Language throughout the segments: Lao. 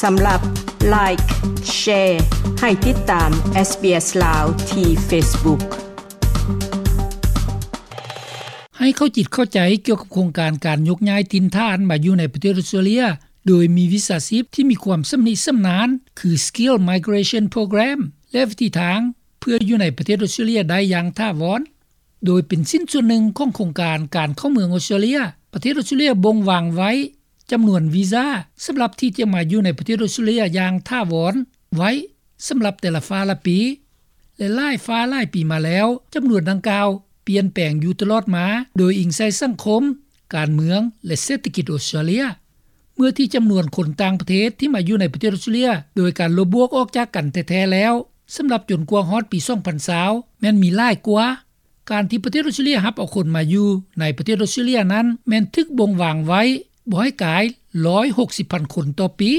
ສຳລັບ Like, Share ໃຫ້ຕິດຕາມ SBS ລາວ ທີ່ Facebook. ໃຫ້ເຂົ້າຈິດເຂົ້າໃຈກ່ຽວກັບໂຄງການການຍົກຍ້າຍຖິ່ນຖານມາຢູ່ໃນປະເທດອອສເຕຣເລຍ ໂດຍມີວິຊາຊີບທີ່ມີຄວາມຊຳນິຊຳນານ ຄື Skill Migration Program ແລະ ວິທີທາງເພື່ອຢູ່ໃນປະເທດອອສເຕຣເລຍໄດ້ຢ່າງຖາວອນ. ໂດຍເປັນຊິ້ນສ່ວນໜຶ່ງຂອງໂຄງການການເຂົ້າເມືອງອອສເຕຣເລຍ, ປະເທດອອສເຕຣເລຍບົ່ງວາງໄວ້ຈຳນວນວີຊາສຳລັບທີ່ຈະມາຢູ່ໃນປະເທດອອສເຕຣເລຍຢ່າງຖາວອນໄວ້ສຳລັບແຕ່ລະຟ້າລະປີ ແລະ ຫຼາຍຟ້າຫຼາຍປີມາແລ້ວ, ຈຳນວນດັ່ງກ່າວປ່ຽນແປງຢູ່ຕະຫຼອດມາ ໂດຍອີງໃສ່ສັງຄົມ, ການເມືອງ ແລະ ເສດຖະກິດອອສເຕຣເລຍ. ເມື່ອທີ່ຈຳນວນຄົນຕ່າງປະເທດທີ່ມາຢູ່ໃນປະເທດອອສເຕຣເລຍໂດຍການລົບບວກອອກຈາກກັນແທ້ໆແລ້ວ, ສຳລັບຈົນກວ່າຮອດປີສອງພັນຊາວ ແມ່ນມີຫຼາຍກວ່າ. ການທີ່ປະເທດອອສເຕຣເລຍຮັບເອົາຄົນມາຢູ່ໃນປະເທດອອສເຕຣເລຍນັ້ນ ແມ່ນຖືກບົ່ງວາງໄວ້ບໍ່ໃຫ້ກາຍຮ້ອຍຫົກສິບພັນຄົນຕໍ່ປີ.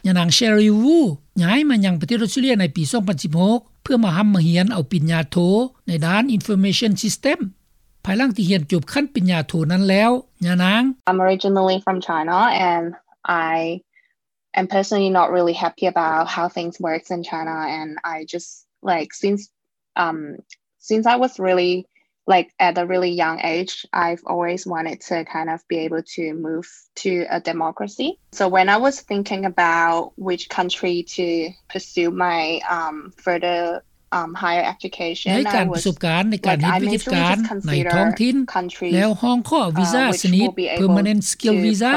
ຍານາງ Sherry Wu ຍ້າຍມາຍັງປະເທດອອສເຕຣເລຍໃນປີສອງພັນສິບຫົກ ເພື່ອມາຮ່ຳມາຮຽນເອົາປະລິນຍາໂທໃນດ້ານ Information System. ພາຍຫຼັງທີ່ຮຽນຈົບຂັ້ນປະລິນຍາໂທນັ້ນແລ້ວ, ຍານາງ I'm originally from China and I am personally not really happy about how things works in China, and I just, like, since, um, since I was really, like, at a really young age, I've always wanted to kind of be able to move to a democracy. So when I was thinking about which country to pursue my, um, further um, higher education, ໃນການປະສົບການໃນການເຮັດວິຊາການໃນທ້ອງຖິ່ນ ແລ້ວຮ້ອງຂໍວິຊາຊະນິດ Permanent Skill Visa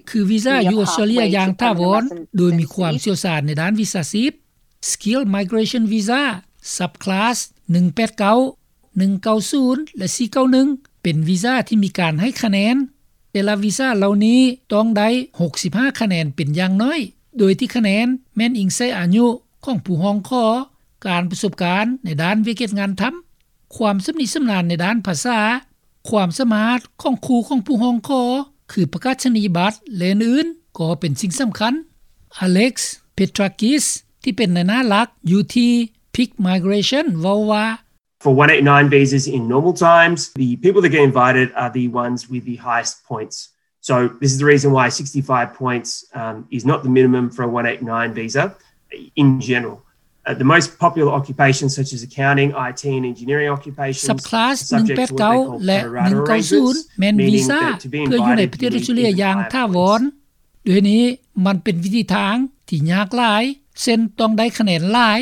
ຄືວິຊາຢູ່ອອສເຕຣເລຍຢ່າງຖາວອນ ໂດຍມີຄວາມຊ່ຽວຊານໃນດ້ານວິຊາຊີບ. Skill Migration Visa Subclass ໜຶ່ງແປດເກົ້າ, ໜຶ່ງເກົ້າສູນ ແລະ ສີ່ເກົ້າໜຶ່ງ ເປັນວີຊາທີ່ມີການໃຫ້ຄະແນນ. ແຕ່ລະວີຊາເຫຼົ່ານີ້ຕ້ອງໄດ້ຫົກສິບຫ້າຄະແນນເປັນຢ່າງໜ້ອຍ, ໂດຍທີ່ຄະແນນແມ່ນອີງໃສ່ອາຍຸຂອງຜູ້ຮ້ອງຂໍ, ການປະສົບການໃນດ້ານວຽກເຮັດງານທຳ, ຄວາມຊຳນິຊຳນານໃນດ້ານພາສາ, ຄວາມສາມາດຂອງຄູ່ຂອງຜູ້ຮ້ອງຂໍ ຄືປະກາສະນີຍະບັດ ແລະ ອື່ນໆ ກໍເປັນສິ່ງສຳຄັນ. Alex Petrakis ທີ່ເປັນນາຍໜ້າຫຼັກຢູ່ທີ່ Peak Migration ເວົ້າວ່າ For one eight nine visas in normal times, the people that get invited are the ones with the highest points. So this is the reason why sixty-five points, um, is not the minimum for a one eight nine visa in general. Uh, the most popular occupations such as accounting, I T and engineering occupations are subject to what they call pro rata arrangements, meaning that to be invited, you need to be paid a certain percentage. Subclass ໜຶ່ງແປດເກົ້າ ແລະ ໜຶ່ງເກົ້າສູນ ແມ່ນວີຊາເພື່ອຢູ່ໃນປະເທດອອສເຕຣເລຍຢ່າງຖາວອນ. ໂດຍນີ້ມັນເປັນວິທີທາງທີ່ຍາກຫຼາຍ, ເຊັ່ນ ຕ້ອງໄດ້ຄະແນນຫຼາຍ.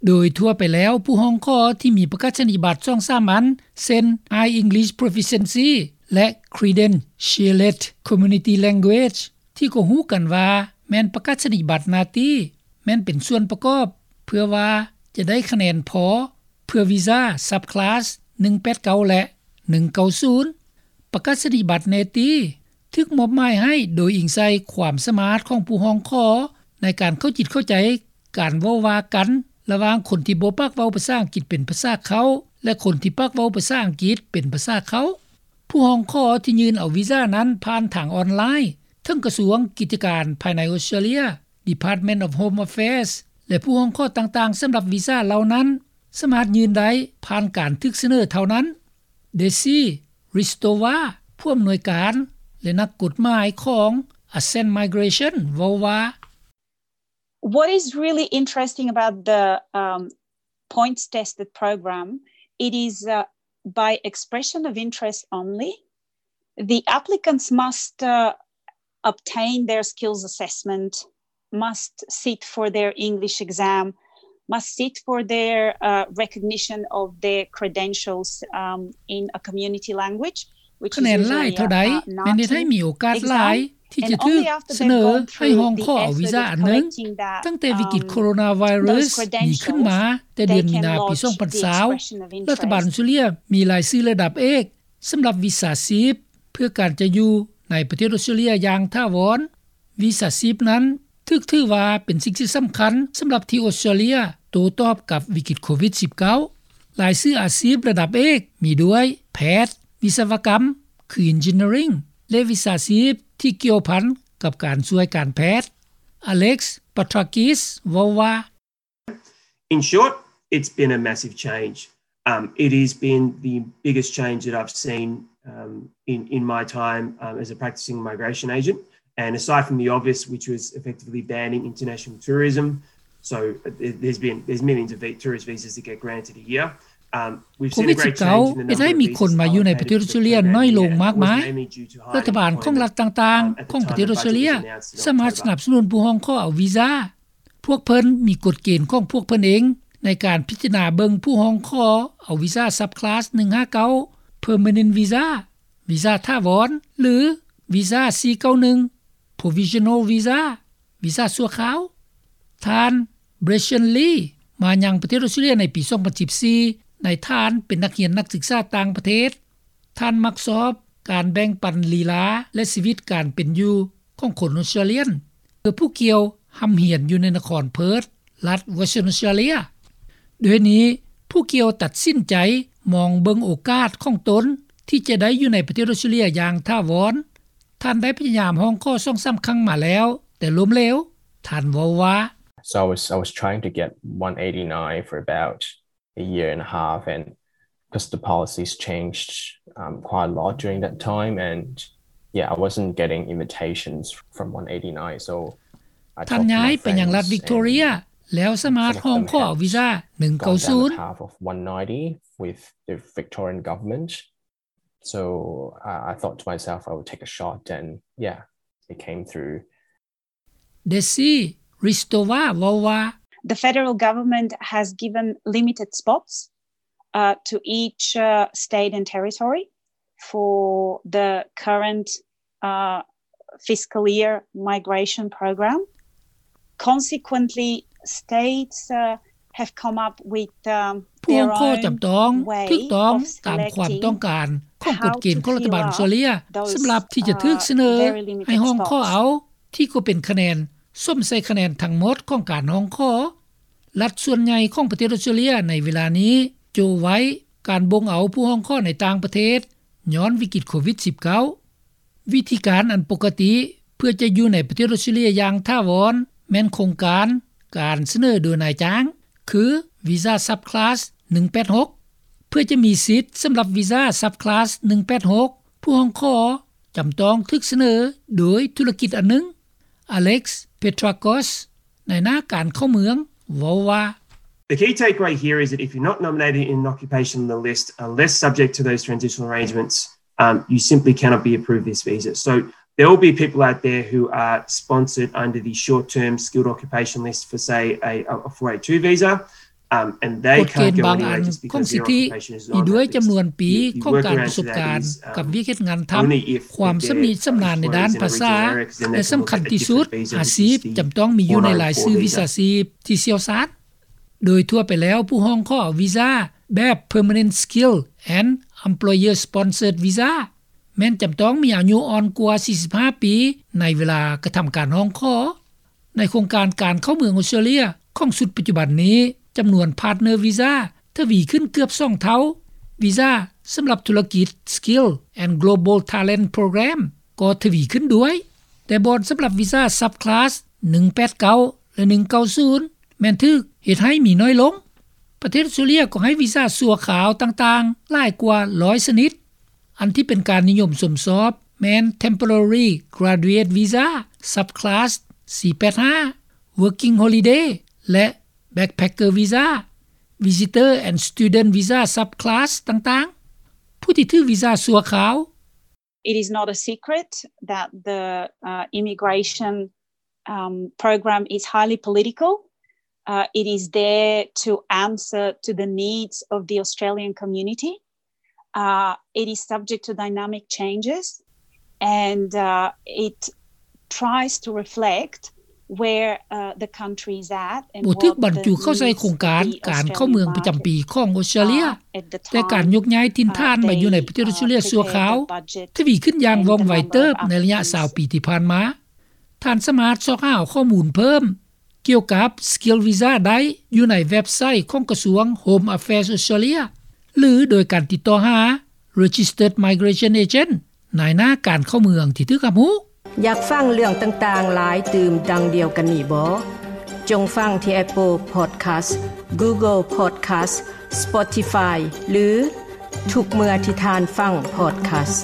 ໂດຍທົ່ວໄປແລ້ວ, ຜູ້ຮ້ອງຂໍທີ່ມີປະກາສະນີຍະບັດສອງສາມອັນ ເຊັ່ນ High English Proficiency ແລະ Credentialed Community Language ທີ່ກໍຮູ້ກັນວ່າແມ່ນປະກາສະນີຍະບັດໜ້າທີ່ ແມ່ນເປັນສ່ວນປະກອບເພື່ອວ່າຈະໄດ້ຄະແນນພໍເພື່ອວີຊາ Subclass ໜຶ່ງແປດເກົ້າ ແລະ ໜຶ່ງເກົ້າສູນ. ປະກາສະນີຍະບັດແນຕີ ຖືກມອບໝາຍໃຫ້ໂດຍອີງໃສ່ຄວາມສາມາດຂອງຜູ້ຮ້ອງຂໍໃນການເຂົ້າຈິດເຂົ້າໃຈການເວົ້າວ່າກັນລະຫວ່າງຄົນທີ່ບໍ່ປາກເວົ້າພາສາອັງກິດເປັນພາສາເຄົ້າ ແລະ ຄົນທີ່ປາກເວົ້າພາສາອັງກິດເປັນພາສາເຄົ້າ. ຜູ້ຮ້ອງຂໍທີ່ຍື່ນເອົາວີຊານັ້ນຜ່ານທາງອອນລາຍ ເຖິງກະຊວງກິດຈະການພາຍໃນອອສເຕຣເລຍ, Department of Home Affairs ແລະ ຜູ້ຮ້ອງຂໍຕ່າງໆສຳລັບວີຊາເຫຼົ່ານັ້ນ ສາມາດຍື່ນໄດ້ຜ່ານການຖືກສະເໜີເທົ່ານັ້ນ. Desi Hristova ຜູ້ອຳນວຍການ ແລະ ນັກກົດໝາຍຂອງ Ascend Migration ເວົ້າວ່າ What is really interesting about the, um, points tested program, it is, uh, by expression of interest only. The applicants must, uh, obtain their skills assessment, must sit for their English exam, must sit for their, uh, recognition of their credentials, um, in a community language, which is usually, uh, ຄະແນນຫຼາຍເທົ່າໃດແມ່ນເຮັດໃຫ້ມີໂອກາດຫຼາຍທີ່ຈະຖືກສະເໜີໃຫ້ຮ້ອງຂໍເອົາວີຊາອັນໜຶ່ງ. ຕັ້ງແຕ່ວິກິດໂຄໂຣນາໄວຣັສມີຂຶ້ນມາແຕ່ເດືອນມີນາປີສອງພັນຊາວ ລັດຖະບານອອສເຕຣເລຍມີລາຍຊື່ລະດັບເອກ ສຳລັບວິຊາຊີບເພື່ອການຈະຢູ່ໃນປະເທດອອສເຕຣເລຍຢ່າງຖາວອນ. ວິຊາຊີບນັ້ນຖືກຖືວ່າເປັນສິ່ງທີ່ສຳຄັນສຳລັບທີ່ອອສເຕຣເລຍໂຕ້ຕອບກັບວິກິດໂຄວິດສິບເກົ້າ. ລາຍຊື່ອາຊີບລະດັບເອກມີດ້ວຍ ແພດ, ວິສະວະກຳ ຄື Engineering ແລະ ວິຊາຊີບທີ່ກ່ຽວພັນກັບການຊ່ວຍການແພດ. Alex Petrakis ເວົ້າວ່າ In short, it's been a massive change. Um, it has been the biggest change that I've seen, um, in, in my time, um, as a practicing migration agent. And aside from the obvious, which was effectively banning international tourism, so there's been, there's millions of tourist visas that get granted a year. ໂຄວິດສິບເກົ້າ ເຮັດໃຫ້ມີຄົນມາຢູ່ໃນປະເທດອອສເຕຣເລຍນ້ອຍລົງມາກມາຍ. ລັດຖະບານຂອງລັດຕ່າງໆຂອງປະເທດອອສເຕຣເລຍສາມາດສະໜັບສະໜູນຜູ້ຮ້ອງຂໍເອົາວີຊາ. ພວກເພິ່ນມີກົດເກນຂອງພວກເພິ່ນເອງໃນການພິຈາລະນາເບິ່ງຜູ້ຮ້ອງຂໍເອົາວີຊາ Subclass ໜຶ່ງຫ້າເກົ້າ Permanent Visa, ວີຊາຖາວອນ ຫຼື ວີຊາ ສີ່ເກົ້າໜຶ່ງ Provisional Visa, ວີຊາຊົ່ວຄາວ. ທ່ານ Brenton Lee ມາຍັງປະເທດອອສເຕຣເລຍໃນປີສອງພັນສິບສີ່ ໃນຖານເປັນນັກຮຽນນັກສຶກສາຕ່າງປະເທດ. ທ່ານມັກຊອບການແບ່ງປັນລີລາ ແລະ ຊີວິດການເປັນຢູ່ຂອງຄົນອອສເຕຣເລຍນ ເພື່ອຜູ້ກ່ຽວຮ່ຳຮຽນຢູ່ໃນນະຄອນເພີດ ລັດ Western Australia. ດ້ວຍນີ້ ຜູ້ກ່ຽວຕັດສິນໃຈມອງເບິ່ງໂອກາດຂອງຕົນທີ່ຈະໄດ້ຢູ່ໃນປະເທດອອສເຕຣເລຍຢ່າງຖາວອນ. ທ່ານໄດ້ພະຍາຍາມຮ້ອງຂໍສອງສາມຄັ້ງມາແລ້ວ ແຕ່ລົ້ມເຫຼວ. ທ່ານເວົ້າວ່າ So I was, I was trying to get one eighty-nine for about a year and a half, and 'cause the policies changed, um, quite a lot during that time, and yeah, I wasn't getting invitations from one eighty-nine, so I ທ່ານຍ້າຍໄປຍັງລັດວິກຕໍເຣຍ ແລ້ວສາມາດຮ້ອງຂໍເອົາວີຊາ ໜຶ່ງເກົ້າສູນ with the Victorian government. So I thought to myself I would take a shot, and yeah, it came through. Desi Ristova ເວົ້າວ່າ The federal government has given limited spots, uh, to each, uh, state and territory for the current, uh, fiscal year migration program. Consequently, states, uh, have come up with, um, ຜູ້ຮ້ອງຂໍຈຳຕ້ອງຖືກຕ້ອງຕາມຄວາມຕ້ອງການຂອງກົດເກນຂອງລັດຖະບານອອສເຕຣເລຍ ສຳລັບທີ່ຈະຖືກສະເໜີໃຫ້ຮ້ອງຂໍເອົາ ທີ່ກໍເປັນຄະແນນສົມໃສ່ຄະແນນທັງໝົດຂອງການຮ້ອງຂໍ. ລັດສ່ວນໃຫຍ່ຂອງປະເທດອອສເຕຣເລຍໃນເວລານີ້ໂຈະໄວ້ການບົ່ງເອົາຜູ້ຮ້ອງຂໍໃນຕ່າງປະເທດ ຍ້ອນວິກິດໂຄວິດສິບເກົ້າ. ວິທີການອັນປົກກະຕິເພື່ອຈະຢູ່ໃນປະເທດອອສເຕຣເລຍຢ່າງຖາວອນ ແມ່ນໂຄງການການສະເໜີໂດຍນາຍຈ້າງ ຄື Visa Subclass ໜຶ່ງແປດຫົກ. ເພື່ອຈະມີສິດສຳລັບ Visa Subclass ໜຶ່ງແປດຫົກ ຜູ້ຮ້ອງຂໍຈຳຕ້ອງຖືກສະເໜີໂດຍທຸລະກິດອັນໜຶ່ງ. Alex Petrakos ນາຍໜ້າການເຂົ້າເມືອງເວົ້າວ່າ The key takeaway here is that if you're not nominated in an occupation on the list, unless subject to those transitional arrangements, um, you simply cannot be approved this visa. So there will be people out there who are sponsored under the short-term skilled occupation list for, say, a, a four eight two visa. ກົດເກນບາງອັນຂອງສິດທິ ມີດ້ວຍຈຳນວນປີຂອງການປະສົບການກັບວຽກເຮັດງານທຳ, ຄວາມຊຳນິຊຳນານໃນດ້ານພາສາ ແລະ ສຳຄັນທີ່ສຸດ ອາຊີບຈຳຕ້ອງມີຢູ່ໃນລາຍຊື່ວິຊາຊີບທີ່ຊ່ຽວຊານ. ໂດຍທົ່ວໄປແລ້ວ ຜູ້ຮ້ອງຂໍວີຊາແບບ Permanent Skill and Employer Sponsored Visa ແມ່ນຈຳຕ້ອງມີອາຍຸອ່ອນກວ່າສີ່ສິບຫ້າປີ ໃນເວລາກະທຳການຮ້ອງຂໍ. ໃນໂຄງການການເຂົ້າເມືອງອອສເຕຣເລຍຂອງຊຸດປັດຈຸບັນນີ້ ຈຳນວນພາດເນີວີຊາທະວີຂຶ້ນເກືອບສອງເທົ່າ, ວີຊາສຳລັບທຸລະກິດ Skill and Global Talent Program ກໍທະວີຂຶ້ນດ້ວຍ, ແຕ່ບ່ອນສຳລັບວີຊາ Subclass ໜຶ່ງແປດເກົ້າ ແລະ ໜຶ່ງເກົ້າສູນ ແມ່ນຖືກເຮັດໃຫ້ມີໜ້ອຍລົງ. ປະເທດອອສເຕຣເລຍກໍໃຫ້ວີຊາຊົ່ວຄາວຕ່າງໆຫຼາຍກວ່າຮ້ອຍຊະນິດ. ອັນທີ່ເປັນການນິຍົມຊົມຊອບແມ່ນ Temporary Graduate Visa Subclass ສີ່ແປດຫ້າ, Working Holiday ແລະ Backpacker Visa, Visitor and Student Visa Subclass ຕ່າງໆ. ຜູ້ທີ່ຖືກວີຊາຊົ່ວຄາວ It is not a secret that the, uh, immigration, um, program is highly political. Uh, it is there to answer to the needs of the Australian community. Uh, it is subject to dynamic changes, and, uh, it tries to reflect where, uh, the country is at and what the needs of the Australian market are at the time. ບໍ່ຖືກບັນຈຸເຂົ້າໃສ່ໂຄງການການເຂົ້າເມືອງປະຈຳປີຂອງອອສເຕຣເລຍ, ແຕ່ການຍົກຍ້າຍຖິ່ນຖານມາຢູ່ໃນປະເທດອອສເຕຣເລຍຊົ່ວຄາວ ທະວີຂຶ້ນຢ່າງວ່ອງໄວເຕີບໃນໄລຍະຊາວປີທີ່ຜ່ານມາ. ທ່ານສາມາດຊອກຫາຂໍ້ມູນເພີ່ມ ກ່ຽວກັບ Skill Visa ໄດ້ຢູ່ໃນເວັບໄຊຂອງກະຊວງ Home Affairs Australia ຫຼື ໂດຍການຕິດຕໍ່ຫາ Registered Migration Agent ນາຍໜ້າການເຂົ້າເມືອງທີ່ຖືກຮັບຮູ້. ຢາກຟັງເລື່ອງຕ່າງໆຫຼາຍຕື່ມດັ່ງດຽວກັນນີ້ບໍ? ຈົ່ງຟັງທີ່ Apple Podcast, Google Podcast, Spotify ຫຼື ທຸກເມື່ອທີ່ທ່ານຟັງ Podcast.